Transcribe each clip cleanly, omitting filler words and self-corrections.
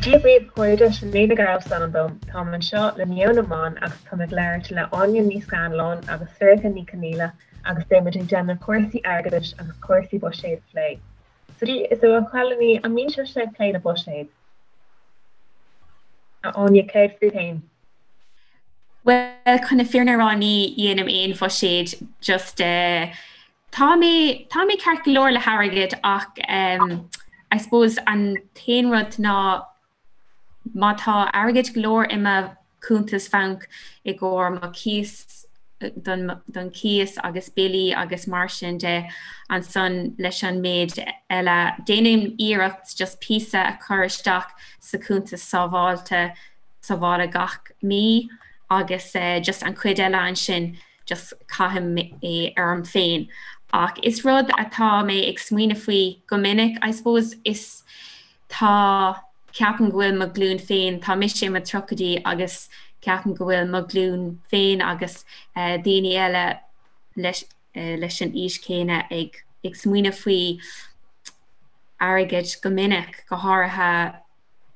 Dia dhaoibh a chairde, Sinéad Nic Gearailt is ainm dom. Táim anseo le Meon na mBan agus táim ag labhairt le Áine Ní Scanláin agus Sorcha Ní Chonaola agus beidh muid ag déanamh cúrsaí airgeadais agus cúrsaí buiséid a phlé. So so a chailíní, an mbíonn sibhse ag plé le buiséad? A Áine, céard fút féin? Bhuel, chun na fírinne a rá ní dhéanaim aon bhuiséad just eh, Tá mé, tá mé ceart go leor le hairgead ach ehm I suppose an t-aon rud ná má tá airgead go leor i mo chuntas bhainc i gcomhair mo chíos, don, don chíos agus billí agus mar sin de, ansan leis an méid eile déanaim iarracht just píosa a chur isteach sa chuntas sábháilte, sábhála gach mí agus eh just an chuid eile ansin just caithim é orm féin. Ach is rud atá mé ag smaoineamh faoi go minic, I suppose, is tá, ceapaim go bhfuil mo ghlúin féin, tá mise i mo tríochaidí agus ceapaim go bhfuil mo ghlúin féin agus daoine eile leis leis an aois chéanna ag ag smaoineamh faoi airgead go minic, go háirithe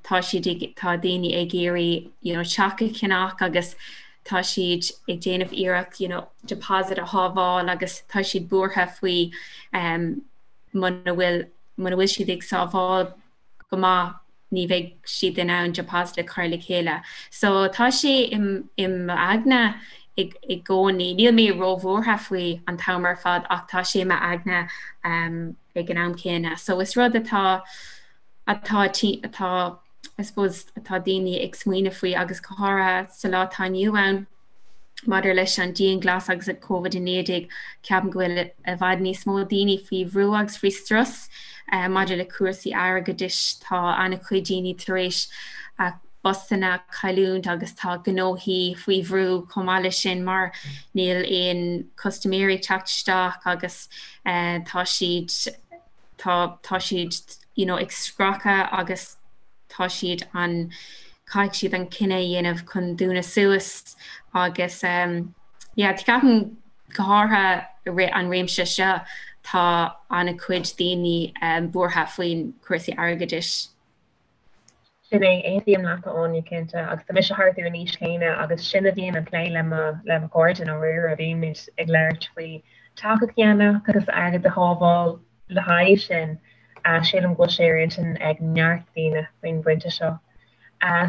tá siad ag, tá daoine ag iarraidh you know teach a cheannach agus tá siad ag déanamh iarracht you know deposit a shábháil agus tá siad buartha faoi um, muna bhfuil muna bhfuil siad ag sábháil go maith ní bheidh siad in ann deposit a chur le chéile. So tá sé i m'aigne i i gcónaí. Níl mé róbhuartha faoi an t-am ar fad ach tá sé i m'aigne um, ag an am céanna. So is rud atá atá, atá, I suppose, atá daoine ag smaoineamh faoi agus go háirithe sa lá atá inniu ann maidir leis an dianghlasáil agus an Covid-19, ceapaim go bhfuil i bhfad níos mó daoine faoi bhrú agus faoi strus maidir le cúrsaí airgeadais. Tá an-chuid daoine tar éis a bpostanna a chailliúint agus tá gnóthaí faoi bhrú chomh maith leis sin mar níl aon custaiméirí ag teacht isteach agus tá siad tá tá siad you know ag scracadh agus tá siad an caithfidh siad an cinneadh a dhéanamh chun dúnadh suas agus um yeah ceapaim go háirithe i rith an réimse seo tá an-chuid daoine um buartha faoin cúrsaí airgeadais. Sin é, aontaím leat a Áine, cinnte, agus tá mise thart ar an aois chéanna agus sin a bhíonn an plé le mo le mo chairde i ndáiríre, bímid ag labhairt faoi teach a cheannach agus airgead a shábháil le haghaidh sin. Sílim go bhfuil sé ar intinn ag neart daoine faoin bpointe seo.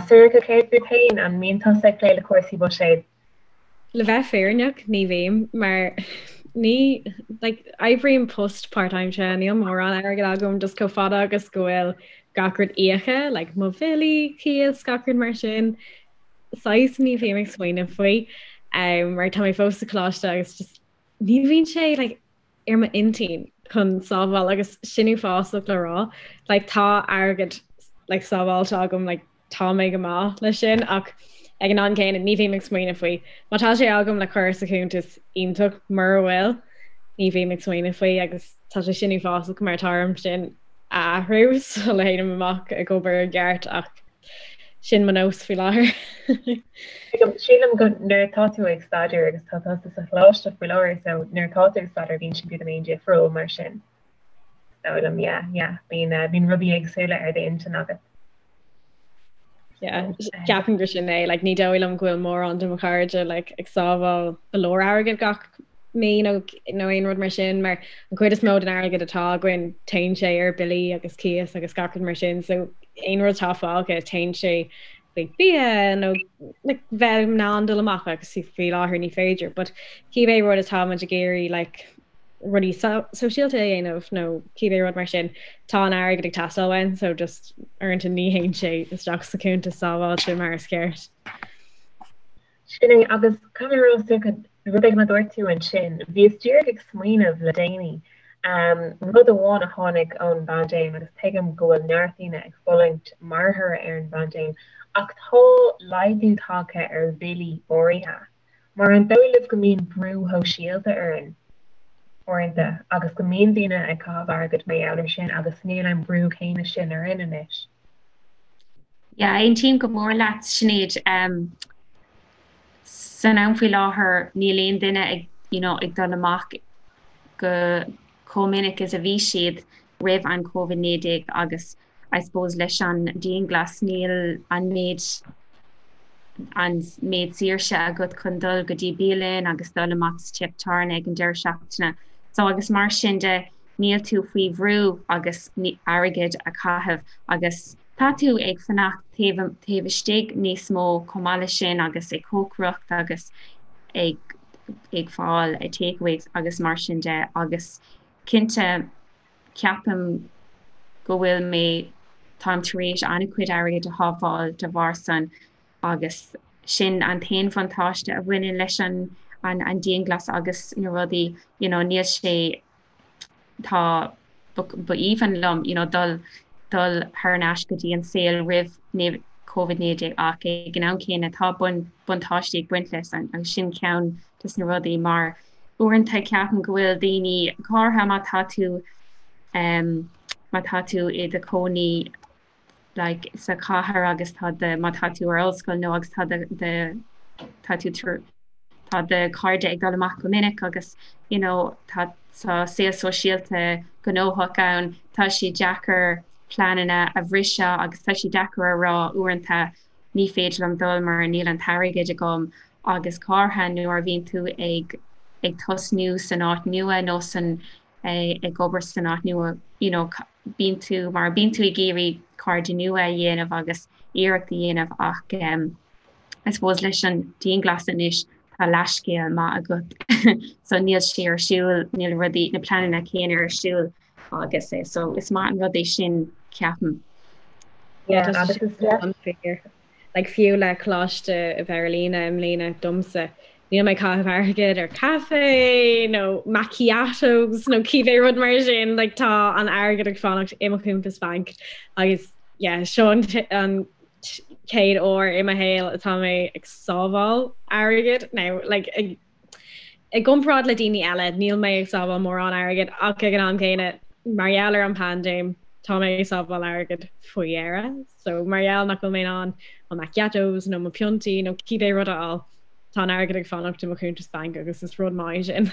Sorcha, céard fút féin, an mbíonn tusa ag plé le cúrsaí buiséid? Le bheith fírinneach, ní bhím, mar ní, like, oibrím post páirtaimseartha, níl mórán airgid agam, just chomh fada agus go bhfuil gach rud íoctha, like, mo bhillí, cíos, gach rud mar sin, saghas ní bhím ag smaoineamh faoi, um, mar tá mé fós sa choláiste agus just ní bhíonn sé, like, ar m'intinn chun sábháil agus sin uafásach le rá, like, tá airgead, like, sábháilte agam, like, tá mé go maith leis sin ach ag an am céanna ní bhím ag smaoineamh faoi. Má tá sé agam le cur sa chuntas iontach mura bhfuil, ní bhím ag smaoineamh faoi agus tá sé sin uafásach mar tá orm sin a athrú sula théim amach ag obair i gceart ach sin mo nós faoi láthair. Sílim go nuair atá tú ag staidéar agus tá tusa sa choláiste faoi láthair so nuair atá tú ag staidéar bíonn sé beagáinín difriúil mar sin. Is dóigh liom, yeah, yeah. Bíonn, bíonn rudaí éagsúla ar d'intinn agat. Yeah, ceapaim gur sin é, like, ní dóigh liom go bhfuil mórán de mo chairde like, ag sábháil go leor airgid gach mí nó nó aon rud mar sin, mar an chuid is mó den airgead atá againn téann sé ar billí agus cíos agus gach rud mar sin, so aon rud atá fágtha téann sé chuig bia nó like, bheith in ann dul amach agus faoi láthair ní féidir, but cibé rud atá muid ag iarraidh like, rudaí sóisialta a dhéanamh nó cibé rud mar sin, tá an airgead ag teastáil uainn so just uaireanta ní théann sé isteach sa chuntas sábháilte mar is ceart. Sin é, agus caithfidh mé a rá Sorcha, rud éigin a dúirt tú ansin, bhíos díreach ag smaoineamh le déanaí, rud amháin a tháinig ón bpaindéim agus tuigim go bhfuil neart daoine ag fulaingt mar thoradh ar an bpaindéim, ach tá laghdú tagtha ar bhillí áirithe. Mar an dóigh libh go mbíonn brú shóisialta orainn uaireanta agus go mbíonn daoine ag caitheamh airgid mar gheall air sin agus níl an brú céanna sin orainn anois? Yeah, aontaím go mór leat, Sinéad. San am faoi láthair níl aon duine ag, you know, ag dul amach go chomh minic is a bhí siad roimh an Covid-19 agus. I suppose leis an dianghlas níl an méid an méid saoirse agat chun dul go dtí bialann agus dul amach sa teach tábhairne ag an deireadh seachtaine. So agus mar sin de níl tú faoi bhrú agus airgead a chaitheamh agus tá tú ag fanacht taobh taobh istigh níos mó chomh maith leis sin agus ag cócaireacht agus ag ag fáil takeaways agus mar sin de agus cinnte ceapaim go bhfuil mé, táim tar éis an-chuid airgid a shábháil de bharr san agus sin an t-aon bhuntáiste a bhaineann leis an an dianghlas agus na rudaí, you know, níl sé, tá, ba aoibhinn liom, you know, dul, dul thar n-ais go dtí an saol roimh Covid-19 ach ag an am céanna tá buntáistí ag baint leis agus sin ceann des na rudaí mar uaireanta ceapaim go bhfuil daoine, go háirithe má tá tú má tá tú i do chónaí like sa chathair agus tá do má tá tú ar ollscoil nó agus tá do do tá tú tá do chairde ag dul amach go minic agus you know tá tá saol sóisialta gnóthach ann, tá sé deacair pleananna a bhriseadh agus tá sé deacair a rá uaireanta ní féidir liom dul mar níl an t-airgead agam agus go háirithe nuair a bhíonn tú ag ag tosnú san áit nua nó san ag obair san áit nua you know bíonn tú mar bíonn tú ag iarraidh cairde nua a dhéanamh agus iarracht a dhéanamh ach um, I suppose leis an dianghlas anois tá leithscéal maith agat so níl sé ar siúl níl rudaí na pleananna céanna ar siúl agus é so is maith an rud é sin ceapaim. Yeah, agus is deas. Like fiú le coláiste a bheith ar líne i mbliana domsa, níl mé ag caitheamh airgead ar caife nó macchiatos nó cibé rud mar sin, like tá an airgead ag fanacht i mo chuntas bainc agus yeah, seo an an chéad uair i mo shaol atá mé ag sábháil airgead now like ag I gcomparáid le daoine eile, níl mé ag sábháil mórán airgid ach ag an am céanna, mar gheall ar an bpaindéim, tá mé ag sábháil airgid faoi dheireadh. So mar gheall nach bhfuil mé in ann mo macchiatos nó mo phiontaí nó cibé rud a fháil, tá an airgead ag fanacht i mo chuntas bainc agus is rud maith é sin.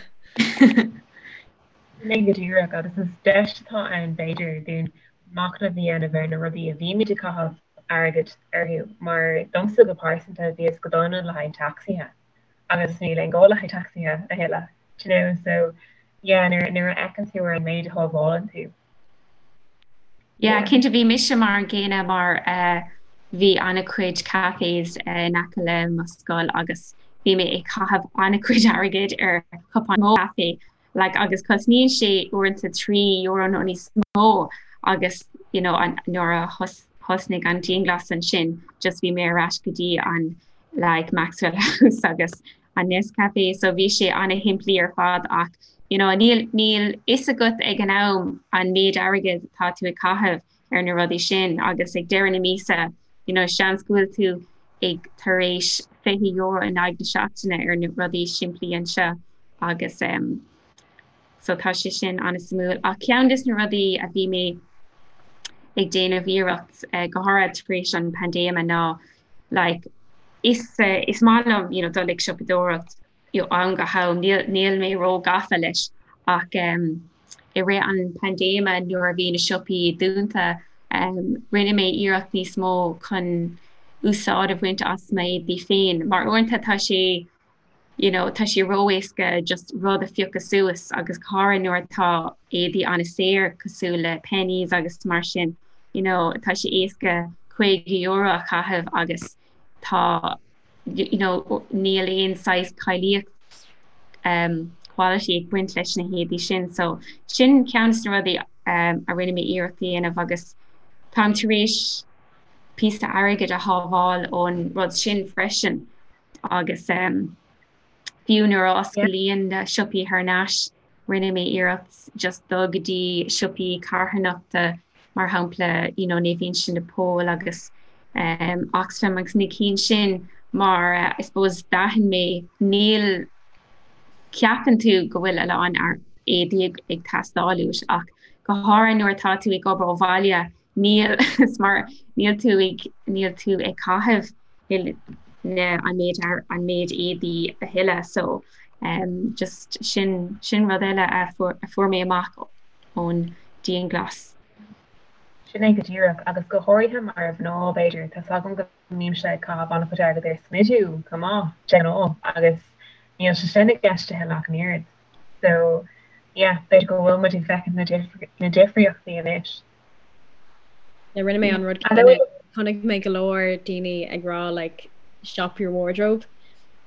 Sin é go díreach agus is deis atá ann b'fhéidir dúinn machnamh a dhéanamh ar na rudaí a bhímid ag caitheamh airgid orthu mar domsa go pearsanta bhíos go dona le haghaidh tacsaithe. agus níl aon gá le haghaidh tacsaithe a thuilleadh, do you know, so yeah nuair nuair a fheiceann tú ar an méid a shábhálann tú. Yeah, cinnte bhí mise mar an gcéanna mar eh, bhí an-chuid cafés eh, in aice le mo scoil agus bhí mé ag caitheamh an-chuid airgid ar chupán caife like agus cosnaíonn sé uaireanta €3 nó níos mó agus you know an nuair a thosnaigh an dianghlas ansin just bhí mé ar ais go dtí an like Maxwell House agus an Nescafe so bhí sé an-shimplí ar fad ach you know níl níl fhios agat ag an am an méid airgid atá tú ag caitheamh ar na rudaí sin agus ag deireadh na míosa you know seans go bhfuil tú ag tar éis €20 in aghaidh na seachtaine ar na rudaí simplí anseo agus um, so tá sé sin an-suimiúil. Ach ceann des na rudaí a bhí mé ag déanamh iarracht uh, go háirithe tar éis an paindéime ná like, is, uh, is maith liom you know, dul ag siopadóireacht ó am go ham, níl, níl mé ró-gafa leis ach um, i rith an paindéime nuair a bhí na siopaí dúnta um, rinne mé iarracht níos mó chun úsáid a bhaint as m'éadaí féin mar uaireanta tá sé you know, tá sé ró-éasca just rud a phiocadh suas agus go háirithe nuair atá éadaí an-saor cosúil le Penneys agus mar sin you know, tá sé éasca €50 a chaitheamh agus tá you know, níl aon saghas cáilíocht um, quality ag baint leis na héadaí sin. So sin ceann des na rudaí um, a rinne mé iarracht a dhéanamh agus táim tar éis píosa airgid a shábháil ón rud sin freisin agus um, fiú nuair a osclaíonn na siopaí thar n-ais rinne mé iarracht just dul go dtí siopaí carthanachta mar shampla you know, Naomh Uinseann de Pól agus um, Oxfam agus na cinn sin mar uh, I suppose d'aithin mé níl ceapann tú go bhfuil a lán éadaí ag, ag teastáil uait ach go háirithe nuair atá tú ag obair ó bhaile Níl, is mar níl tú ag, níl tú ag caitheamh na, an méid, an méid éadaí a thuilleadh so um, just sin, sin rud eile a fuair, a fuair mé amach ón dianghlas. Sin é go díreach, agus go háirithe mar mhná, b'fhéidir, tá's agam go mbímse ag caitheamh an-chuid airgid ar smidiú chomh maith, de ghnáth, agus níl sé sin i gceist a thuilleadh ach an oiread. So, yeah, b'fhéidir go bhfuil muid ag feiceáil na difríochtaí anois. Yeah, rinne mé an rud céanna. Chonaic mé go leor daoine ag rá like shop your wardrobe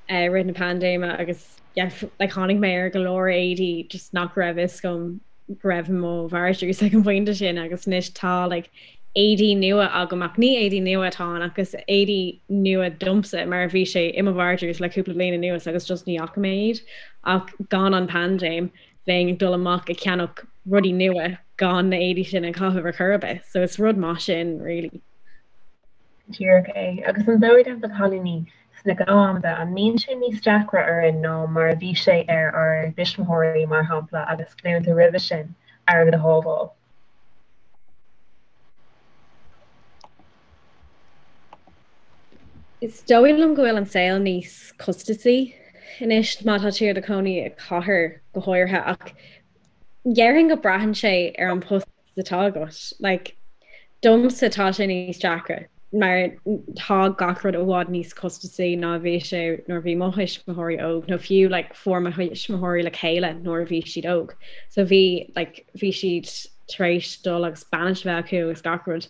i rith na paindéime agus yeah, like tháinig mé ar go leor éadaí just nach raibh fhios agam go raibh i mo vardrús ag an bpointe sin agus anois tá like éadaí nua agam ach ní éadaí nua atá ann ach is éadaí nua domsa mar bhí sé i mo vardrús le cúpla bliain anuas agus just ní fhaca mé iad ach gan an paindéim bheinn ag dul amach ag ceannach rudaí nua gan na éadaí sin a chaitheamh ar chor ar bith so is rud maith sin really. Díreach é. Agus an dóigh libh a chailíní sna gnáthamanta, an mbíonn sé níos deacra orainn ná mar a bhí sé ar ár dtuismitheoirí, mar shampla, agus glúnta roimhe sin, airgead a shábháil? Is dóigh liom go bhfuil an saol níos costasaí anois má tá tú i do chónaí i gcathair go háirithe ach déarfainn go braitheann sé ar an post atá agat. Like, domsa tá sé níos deacra mar tá gach rud i bhfad níos costasaí ná a bhí sé nuair a bhí mo thuismitheoirí óg nó fiú like, fuair mo thuismitheoirí le chéile nuair a bhí siad óg. So bhí like, bhí siad tar éis dul agus bainis a bheith acu agus gach rud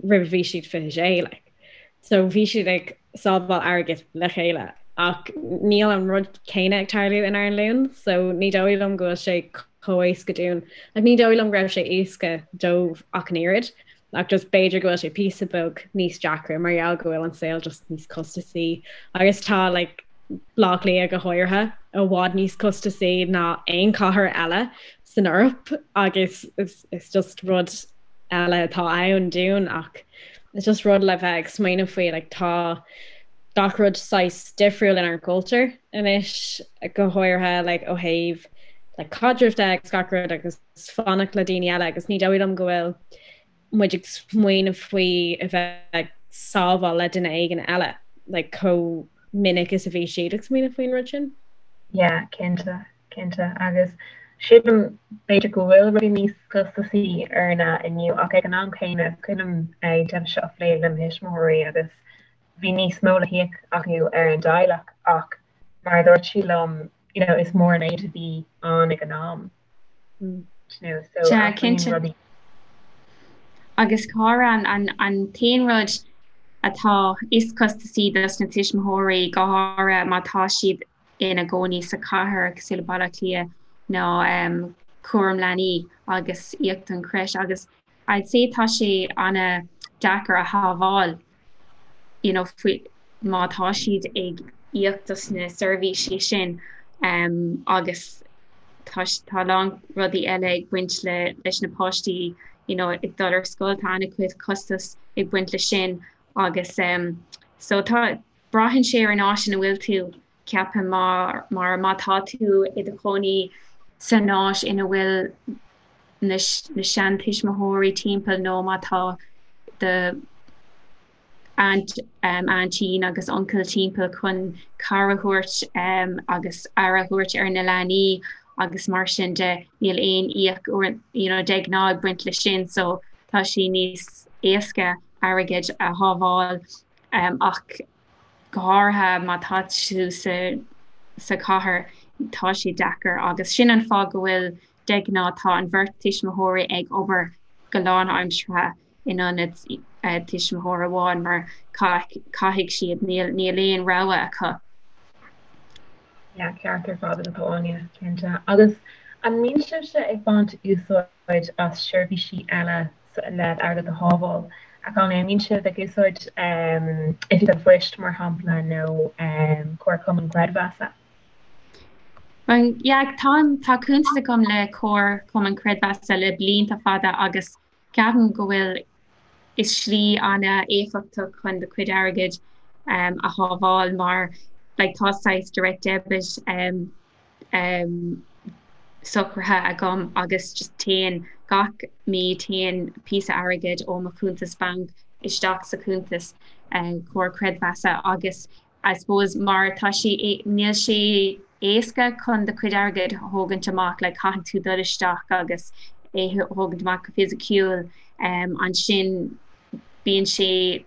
roimh a bhí siad 26 like. So bhí siad ag sábháil airgid le chéile ach níl an rud céanna ag tarlú inár nglúin so ní dóigh liom go bhfuil sé chomh éasca dúinn. Like, ní dóigh liom go raibh sé éasca dóibh ach an oiread ach just b'fhéidir go bhfuil sé píosa beag níos deacra mar gheall go bhfuil an saol just níos costasaí agus tá like, Baile Átha Cliath go háirithe i bhfad níos costasaí ná aon chathair eile san Eoraip agus is just rud eile atá ann dúinn ach it's just rud le bheith ag smaoineamh faoi like tá gach rud saghas difriúil inár gcultúr anois go háirithe like ó thaobh like caidrimh de agus gach rud agus fanacht le daoine eile agus ní dóigh liom go bhfuil muid ag smaoineamh faoi a bheith ag sábháil le duine éigin eile like chomh minic is a bhí siad ag smaoineamh faoin rud sin. Yeah, cinnte. Cinnte, agus sílim b'fhéidir go bhfuil rudaí níos costasaí orainne inniu ach ag an am céanna is cuimhin liom an téama seo a phlé le mo thuismitheoirí agus bhí níos mó le híoc acu ar an dteaghlach ach mar a dúirt siad liom you know is mór an méid a bhí ann ag an am you know so Sea, cinnte. rudaí. Agus cara an an t-aon rud atá is costasaí dos na tuismitheoirí go háirithe má tá siad ina gcónaí sa chathair cosúil le Baile Átha Cliath ná cúram leanaí agus íoc don creche agus I'd say tá sé an-deacair a shábháil you know faoi má tá siad ag íoc dos na seirbhísí sin agus tá tá a lán rudaí eile ag baint le leis na páistí you know ag dul ar scoil tá an-chuid costas ag baint le sin agus so tá Braitheann sé ar an áit ina bhfuil tú, ceapaim, mar má tá tú i do chónaí san áit ina bhfuil na seantuismitheoirí timpeall nó má tá do aunt, aintín agus uncail timpeall chun cabhair a thabhairt agus aire a thabhairt ar na leanaí agus mar sin de, níl aon íoc you know de ghnáth ag baint leis sin so tá sé níos éasca airgead a shábháil. Ach go háirithe má tá tú sa chathair, tá sé deacair agus sin an fáth go bhfuil de ghnáth tá an bheirt tuismitheoirí ag obair go lánaimseartha in ionad tuismitheoir amháin mar caithfidh siad, níl níl aon rogha acu. Yeah, ceart ar fad agat Áine, cinnte. Agus an mbíonn sibhse ag baint úsáid úsáid as seirbhísí eile le airgead a shábháil. A chailíní, an mbíonn sibh ag úsáid Oifig an Phoist, mar shampla, nó Comharchumann Creidmheasa? Yeah, tá, tá cuntas agam le Comharchumann Creidmheasa le blianta fada agus ceapaim go bhfuil is slí an-éifeachtach chun do chuid airgid a shábháil mar like tá saghas direct debit socraithe agam agus just téann gach mí téann píosa airgid ó mo chuntas banc isteach sa chuntas comhar creidmheasa agus I suppose mar tá sé níl sé éasca chun do chuid airgid a thógaint amach like caithfidh tú dul isteach agus é thógaint amach go fisiciúil. Ansin bíonn sé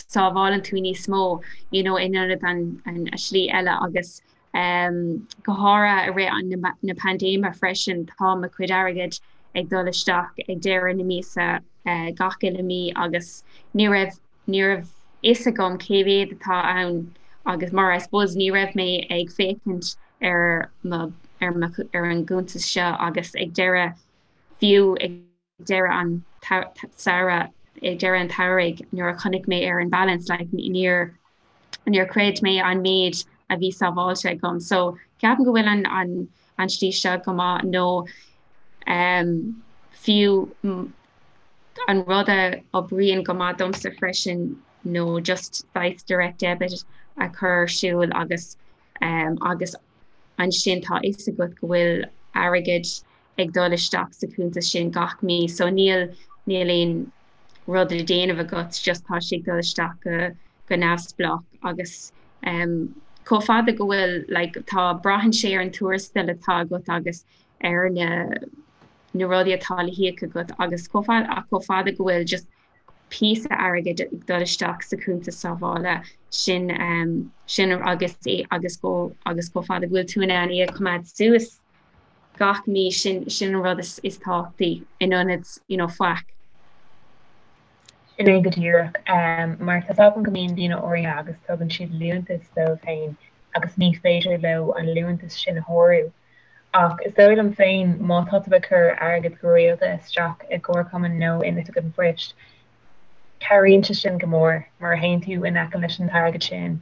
sábhálann tú níos mó you know in ionad an an slí eile agus go háirithe i rith na paindéime freisin tá mo chuid airgid ag dul isteach ag deireadh na míosa gach uile mí agus ní raibh ní raibh fhios agam cé mhéad atá ann agus mar I suppose ní raibh mé ag féachaint ar mo ar mo ar an gcuntas seo agus ag deireadh fiú ag deireadh an tsamhraidh ag deireadh an tsamhraidh nuair a chonaic mé ar an balance like níor níor chreid mé an méid a bhí sábháilte agam so ceapaim go bhfuil an an an slí seo go maith nó um, fiú an rud a oibríonn go maith domsa freisin nó just saghas direct debit a chur ar siúl agus um, agus ansin tá fhios agat go bhfuil airgead ag dul isteach sa chuntas sin gach mí so níl níl aon rud le déanamh agat just tá sé ag dul isteach go go neamhspleách agus um, chomh fada go bhfuil like, tá braitheann sé ar an tuarastal atá agat agus ar na na rudaí atá le híoc agat agus chomh fada ach chomh fada go bhfuil just píosa airgid ag dul isteach sa chuntas sábhála sin um, sin agus é agus go agus chomh fada go bhfuil tú in ann é a choimeád suas gach mí sin sin an rud is is tábhachtaí in ionad you know faic. Sin é go díreach. Mar tá 's agam go mbíonn daoine áirithe agus tugann siad liúntas dóibh féin agus ní féidir leo an liúntas sin a shárú. Ach is dóigh liom féin má tá tú ag cur airgead go rialta isteach i gcomharchumann nó in Oifig an Phoist, cabhraíonn sé sin go mór mar théann tú in aice leis an t-airgead sin.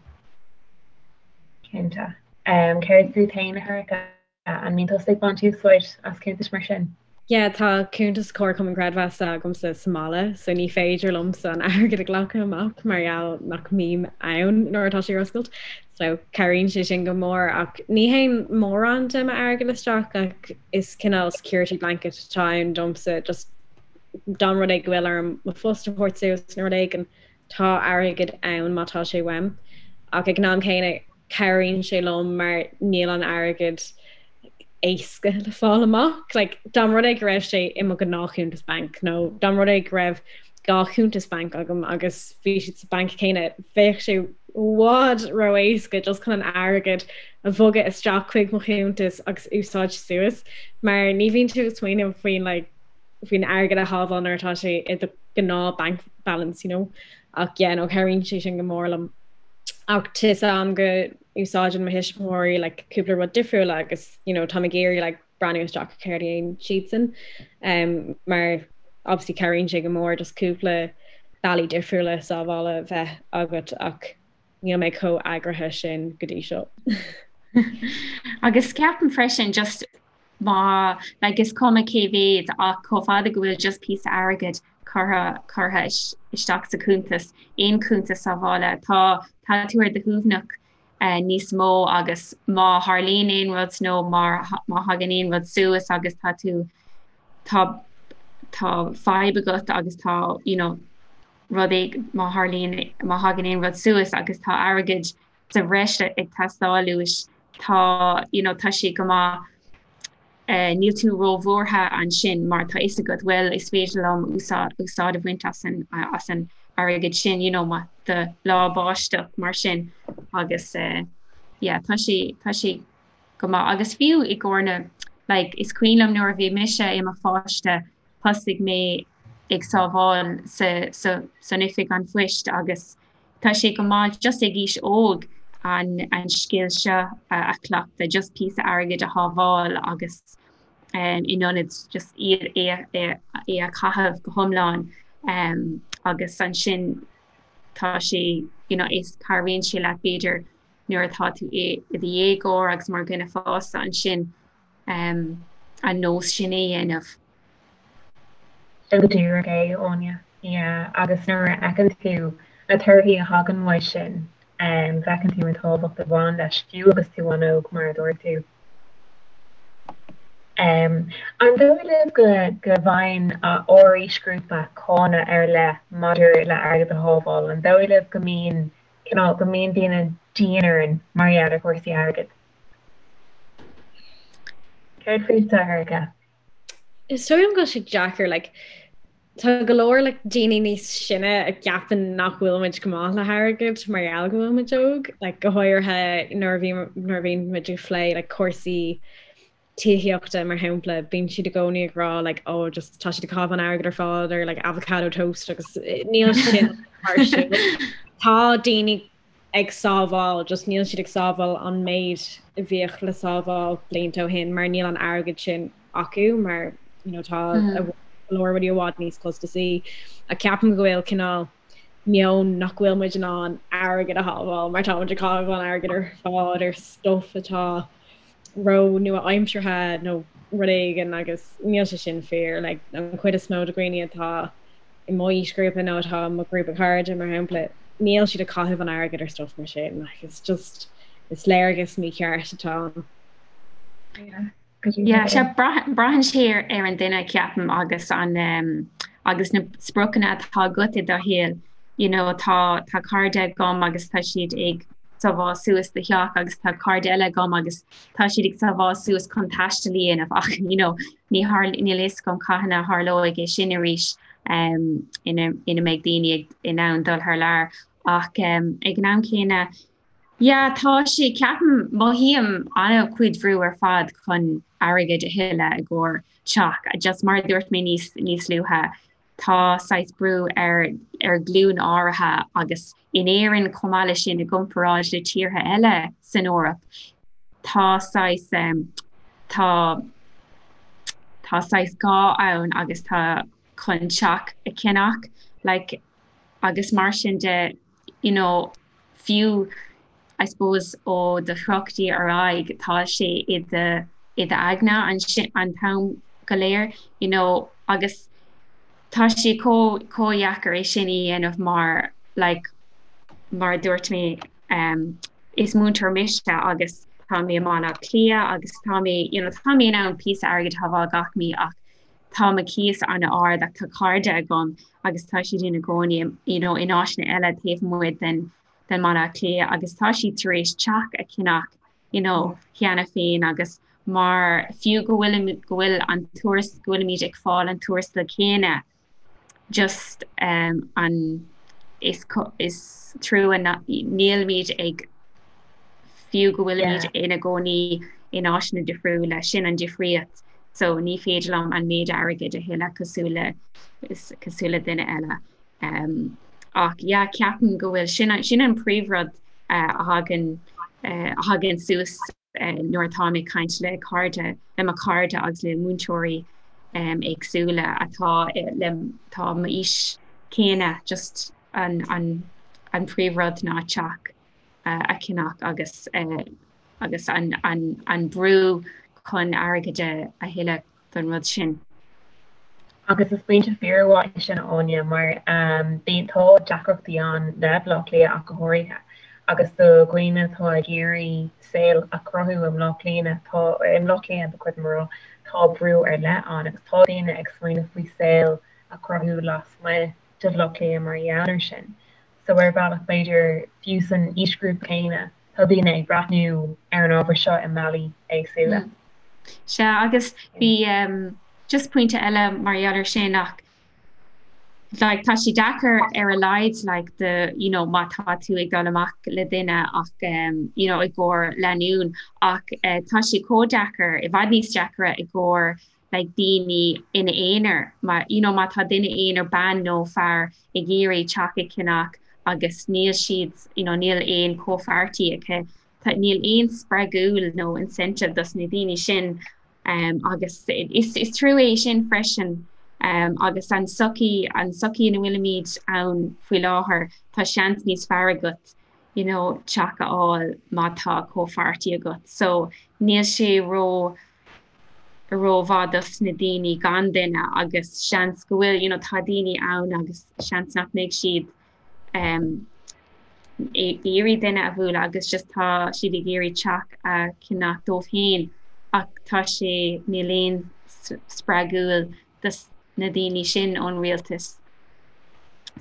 Cinnte. Céard fút féin, a Shorcha? An mbíonn tusa ag baint úsáid as cuntais mar sin? Yeah, tá cuntas Comharchumann Creidmheasa agamsa sa mbaile, so ní féidir liomsa an airgead a ghlacadh amach mar gheall nach mbím ann nuair atá sé ar oscailt. So cabhraíonn sé sin go mór ach ní théann mórán de m'airgead isteach ach is cineál security blanket atá ann domsa just dá mba rud é go bhfuil orm mo phost a thabhairt suas nó rud éigin tá airgead ann má tá sé uaim. Ach ag an am céanna cabhraíonn sé liom mar níl an airgead éasca le fáil amach. Like, dá mba rud é go raibh sé i mo ghnáthchuntas banc nó dá mba rud é go raibh dhá chuntas banc agam agus bhí siad sa banc céanna, bheadh sé i bhfad ró-éasca just chun an airgead a bhogadh isteach chuig mo chuntas agus úsáid suas mar ní bhíonn tú ag smaoineamh faoin like, faoin airgead a shábháil nuair atá sé i do ghnáth bank balance, you know. Ach yeah, no, cabhraíonn sé sin go mór liom. Ach tá 'fhios a'm go úsáideann mo thuismitheoirí like, cúpla rud difriúil agus you know, táim ag iarraidh like, breathnú isteach ar céard a dhéanann siadsan um, mar obviously cabhraíonn sé go mór just cúpla bealaí difriúla sábhála bheith agat ach níl mé chomh eagraithe sin go dtí seo. Agus ceapaim freisin just má like is cuma cé mhéad ach chomh fada go bhfuil just píosa airgid curtha curtha isteach sa chuntas, aon chuntas sábhála, tá tá tú ar do shuaimhneach eh, níos mó agus má tharlaíonn aon rud nó má má thagann aon rud suas agus tá tú tá tá fadhb agat agus tá you know, rud éig má tharlaíonn má thagann aon rud suas agus tá airgead sa bhreis ag teastáil uait, tá, you know, tá sé go maith, eh, níl tú róbhuartha ansin mar tá fhios agat, bhuel, is féidir liom úsáid, úsáid a bhaint as an, as an airgead sin, you know, má do lá báisteach mar sin agus, eh, yeah, tá sé, tá sé go maith. Agus fiú i gcomhair na, like, is cuimhin liom nuair a bhí mise i mo pháiste, thosaigh mé ag sábháil sa, sa, san oifig an phoist agus, Tá sé go maith just ag aois óg an an scil seo a chleachtadh, just píosa airgid a shábháil agus in ionad just iad é é a chaitheamh go hiomlán agus ansin tá sé you know is cabhraíonn sé leat b'fhéidir nuair atá tú i do dhéagóir agus mar dhuine fásta ansin an nós sin a dhéanamh. Sin go díreach é, Áine. Yeah, agus nuair a fheiceann tú na torthaí a thagann uaidh sin, feiceann tú an tábhacht a bhain leis, fiú agus tú an-óg, mar a dúirt tú. An dóigh libh go go bhfaigheann ár aoisghrúpa cáineadh ar leith maidir le airgead a shábháil? An dóigh libh go mbíonn cineál, go mbíonn daoine dian orainn mar gheall ar chúrsaí airgid? Céard fútsa, a Shorcha? Is dóigh liom go bhfuil sé deacair, like. Tá go leor like daoine níos sine a gceapann nach bhfuil muid go maith le hairgead mar gheall go bhfuil muid óg, like go háirithe nuair a bhí nuair a bhíonn muid ag plé like cúrsaí tithíochta mar shampla, bíonn siad i gcónaí ag rá like oh just tá siad ag caitheamh an airgead ar fad ar like avocado toast agus níl sin mar sin. Tá daoine ag sábháil, just níl siad ag sábháil an méid a bhíodh le sábháil blianta ó shin mar níl an airgead sin acu mar you know tá go leor rudaí i bhfad níos costasaí. Ach ceapaim go bhfuil cineál meon nach bhfuil muid in ann airgead a shábháil mar tá muid ag caitheamh an airgead ar fad ar stuff atá ró nua-aimseartha nó rud éigin agus níl sé sin fíor. Like an chuid is mó de dhaoine atá i mo aoisghrúpa nó atá i mo ghrúpa cairde, mar shampla, níl siad ag caitheamh an airgid ar stuff mar sin. Like, it's just, is léargas mícheart atá ann. Yeah, sea, braitheann sé ar an duine, ceapaim, agus an um, agus na spriocanna atá agat i do shaol. You know, tá tá cairde agam agus tá siad ag sábháil suas do theach agus tá cairde eile agam agus tá siad ag sábháil suas chun taisteal a dhéanamh ach you know, Ní níl a fhios agam cathain a tharlóidh é sin arís ina ina mbeidh daoine in ann dul thar lear ach ag an am céanna yeah tá sé ceapaim mothaím an-chuid bhrú ar fad chun airgead a thuilleadh i gcomhair teach just mar a dúirt mé níos níos luaithe tá saghas brú ar ar ghlúin áirithe agus in Éirinn chomh maith leis sin i gcomparáid le tíortha eile san Eoraip tá saghas tá tá saghas gá ann agus tá chun teach a cheannach like agus mar sin de you know fiú I suppose ó do thríochaidí ar aghaidh tá sé i do i d'aigne an an t-am go léir you know agus tá sé chomh chomh dheacair é sin a dhéanamh mar like mar a dúirt mé um is múinteoir mise agus tá mé i mBaile Átha Cliath agus tá mé you know tá mé in ann píosa airgid a shábháil gach mí ach tá mo cíos an-ard ach tá cairde agam agus tá siad ina gcónaí you know in áiteanna eile taobh amuigh den den mBaile Átha Cliath agus tá siad tar éis teach a cheannach you know cheana féin agus mar fiú go bhfuil go bhfuil an tuaras go bhfuilimid ag fáil an tuarastal céanna just um an is is trua nílimid ag fiú go bhfuilimid ina gcónaí in áiteanna difriúla sin an difríocht so ní féidir liom an méid airgid a thuilleadh cosúil le cosúil le duine eile. Um, ach yeah, ceapaim go bhfuil sin, sin an príomhrud uh, a thagann uh, a thagann suas uh, nuair atá mé ag caint le cairde le mo chairde agus le múinteoirí um, éagsúla atá le tá m'aois céanna just an, an, an príomhrud ná teach uh, a cheannach agus uh, agus an, an, an brú chun airgead a thuilleadh don rud sin. Agus is pointe fíormhaith é sin, a Áine, mar bíonn, tá deacrachtaí ann le Baile Átha Cliath ach go háirithe, agus do dhaoine atá ag iarraidh saol a chruthú i mBleá Cliath, tá, i mBleá Cliath ba chóir dom a rá, tá brú ar leith ann agus tá daoine ag smaoineamh faoi saol a chruthú lasmuigh de Bhaile Átha Cliath mar gheall air sin. So ar bhealach b'fhéidir, fiú san aoisghrúpa céanna, tá daoine ag breathnú ar an ábhar seo i mbealaí éagsúla. Sea, agus bhí just pointe eile mar gheall ar sin ach like tá sé deacair ar a laghad like do you know má tá tú ag dul amach le duine ach um, you know i gcomhair lánúin ach uh, tá sé chomh deacair i bhfad níos deacra i gcomhair like daoine ina aonar mar you know má tá duine aonair bean nó fear ag iarraidh teach a cheannach agus níl siad you know níl aon chomhpháirtí acu tá níl aon spreagúil nó incentive dos na daoine sin um, agus is, is trua é sin freisin um, agus an sochaí an sochaí ina bhfuilimid ann faoi láthair tá seans níos fearr agat you know teach a fháil má tá comhpháirtí agat so níl sé ró rómhaith dos na daoine gan duine agus seans go bhfuil you know tá daoine ann agus seans nach mbeidh siad um, ag iarraidh duine a bhualadh agus just tá siad ag iarraidh teach a cheannach dóibh féin ach tá sé níl aon spreagúil dos na daoine sin ón rialtas.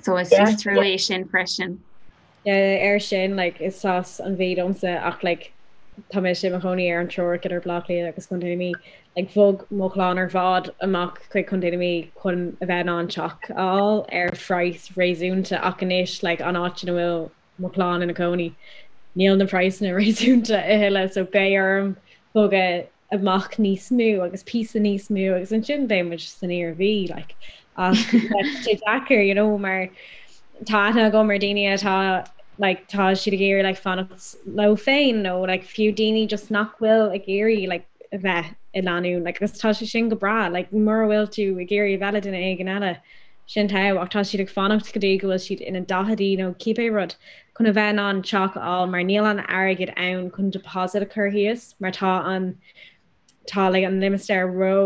So is yeah. trua é sin freisin. Yeah, ar sin like is as an Mhí domsa ach like. Tá mise i mo chónaí ar an teorainn idir Baile Átha Cliath agus Contae na Mí. Like bhog mo chlann ar fad amach chuig Contae na Mí chun a bheith in ann teach a fháil ar phraghas réasúnta ach anois like an áit ina bhfuil mo chlann ina cónaí níl na praghsanna réasúnta a thuilleadh so beidh orm bogadh amach níos mó agus píosa níos mó agus ansin beidh muid san Iarmhí like ach tá sé deacair you know mar tá aithne agam ar daoine atá like tá siad ag iarraidh like fanacht leo féin nó like fiú daoine just nach bhfuil ag iarraidh like a bheith i lánúin like agus tá sé sin go breá like mura bhfuil tú ag iarraidh a bheith le duine éigin eile sin togha ach tá siad ag fanacht go dtí go bhfuil siad ina daicheadaí nó cibé rud chun a bheith in ann teach a fháil mar níl an airgead ann chun deposit a chur thíos mar tá an tá like an limistéar ró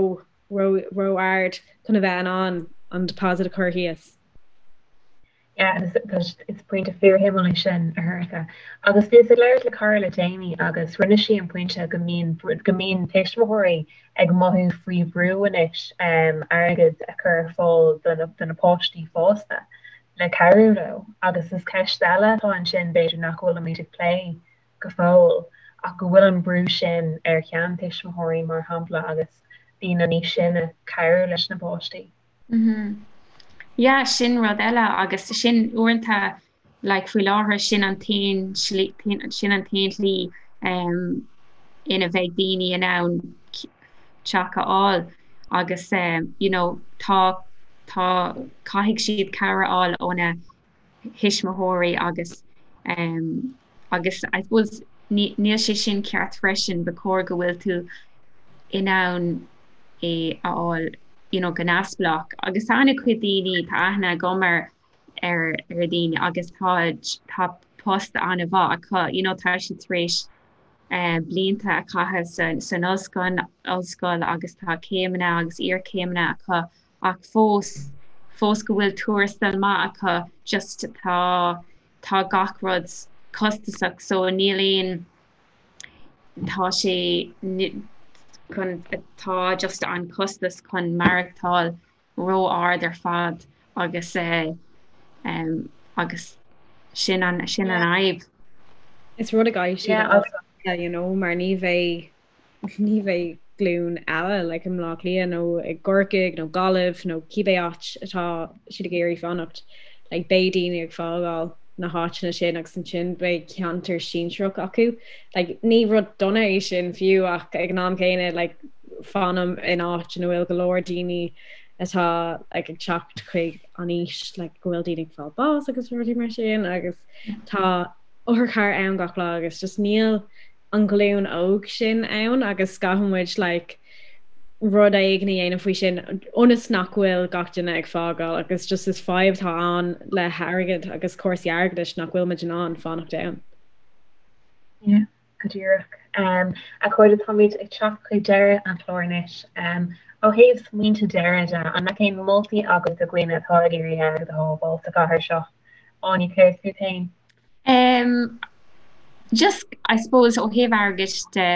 ró ró ard chun a bheith in ann an deposit a chur thíos. Yeah, is pointe fíorshuimiúil é sin, a Shorcha. Agus bhíos ag labhairt le cara le déanaí agus rinne sí an pointe go mbíonn go mbíonn tuismitheoirí ag mothú faoi bhrú anois airgead a chur ar fáil do na páistí fosta le cabhrú leo agus is ceist eile atá ansin b'fhéidir nach bhfuilimid ag plé go fóill ach go bhfuil an brú sin ar sheantuismitheoirí mar shampla agus daoine níos sine cabhrú leis na páistí. Yeah, sin rud eile agus sin uaireanta like faoi láthair sin an t-aon slí sin an t-aon tslí um, ina bheidh daoine in ann teach a fháil agus um, you know, tá tá caithfidh siad cabhair a fháil óna thuismitheoirí agus um, agus I suppose níl sé sin ceart freisin, ba chóir go bhfuil tú in ann é a fháil you know, go neamhspleách. Agus tá an-chuid daoine, tá aithne agam ar ar ar daoine agus tá tá post an-mhaith acu, you know, tá siad tar éis uh, blianta a chaitheamh san, san ollscoil, ollscoil agus tá céimeanna agus iarchéimeanna acu ach fós fós go bhfuil tuarastal maith acu just tá tá gach rud costasach so níl aon tá sé chun tá just an costas chun maireachtáil ró-ard ar fad agus eh, um, agus sin an sin an fhadhb. Is rud a gcaithfidh siad a you know, mar ní bheidh ní bheidh glúin eile like i mBleá Cliath nó i gCorcaigh nó Gaillimh nó cibé áit atá siad ag iarraidh fanacht, like beidh daoine ag fágáil na háiteanna sin agus ansin beidh ceantar sinsearach acu. Like ní rud dona é sin fiú ach ag an am céanna like fanaim in áit ina bhfuil go leor daoine atá like ag teacht chuig an aois like go bhfuil daoine ag fáil bás agus rudaí mar sin agus tá otharcharr ann gach lá agus just níl an ghlúin óg sin ann agus caithfidh muid like rud éigin a dhéanamh faoi sin ionas nach bhfuil gach duine ag fágáil agus just is fadhb atá ann le hairgead agus cúrsaí airgeadais nach bhfuil muid in ann fanacht ann. Yeah, go díreach. Um, a chairde táimid ag teacht chuig deireadh an chláir anois. Um, ó thaobh smaointe deiridh de, an mbeadh aon moltaí agat do dhaoine atá ag iarraidh airgead a shábháil sa chathair seo? Áine, céard fút féin? Um, just, I suppose, ó thaobh airgid de,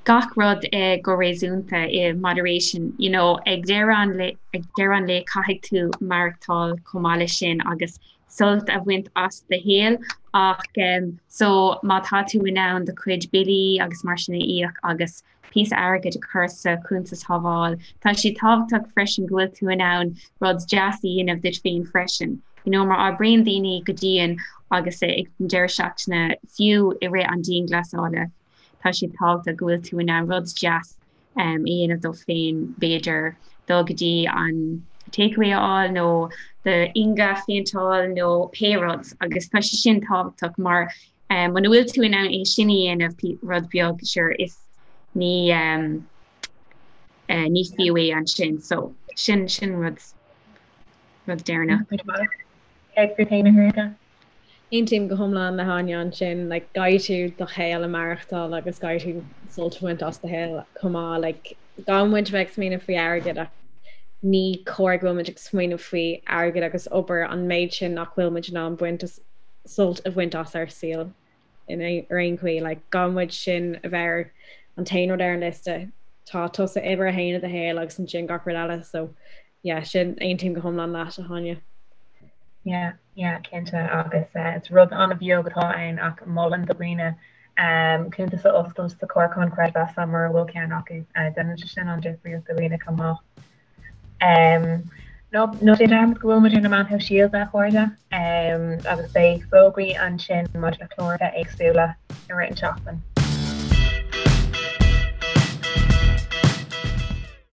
gach rud eh, go réasúnta, i moderation, you know, ag deireadh an lae, ag deireadh an lae caithfidh tú maireachtáil chomh maith leis sin agus sult a bhaint as do shaol ach um, so má tá tú in ann do chuid billí agus mar sin a íoc agus píosa airgid a chur sa chuntas shábháil. Tá sé tábhachtach freisin go bhfuil tú in ann rud deas a dhéanamh duit féin freisin. You know, mar oibríonn daoine go dian agus ag an deireadh seachtaine, fiú i rith an dianghlasála, tá sé tábhachtach go bhfuil tú in ann rud deas um, a dhéanamh duit féin, b'fhéidir dul go dtí an takeaway a fháil nó d'inge a phéinteáil nó pé rud agus tá sé sin tábhachtach mar Muna bhfuil tú in ann é sin a dhéanamh, rud beag, sure, is ní ní fiú é ansin. So, sin sin rud rud deireanach. Céard fút féin, a Shorcha? Aontaím go hiomlán le hÁine ansin, like, caithfidh tú do shaol a maireachtáil agus caithfidh tú sult a bhaint as do shaol chomh maith, like, caithfidh muid a bheith ag smaoineamh faoi airgead ach ní cóir go bhfuil muid ag smaoineamh faoi airgead agus obair an méid sin nach bhfuil muid in ann baint as sult a bhaint as ár saol in ar aon chaoi. Like, caithfidh muid sin a bheith ar an t-aon rud ar an liosta. Tá tusa uimhir a haon i do shaol agus ansin gach rud eile. So, yeah, sin, aontaím go hiomlán leat, a Háine. Yeah, yeah, cinnte agus uh, is rud an-bheag atá ann ach molaim do dhaoine. Cuntas a oscailt sa Chomharchumann Creidmheasa mura bhfuil ceann acu. Déanann sé sin an-difríocht do dhaoine chomh maith. Ná ná déan dearmad go bhfuil muid ar na meáin shóisialta, a chairde, agus beidh fógraí ansin maidir le cláracha éagsúla i rith an tseachtain.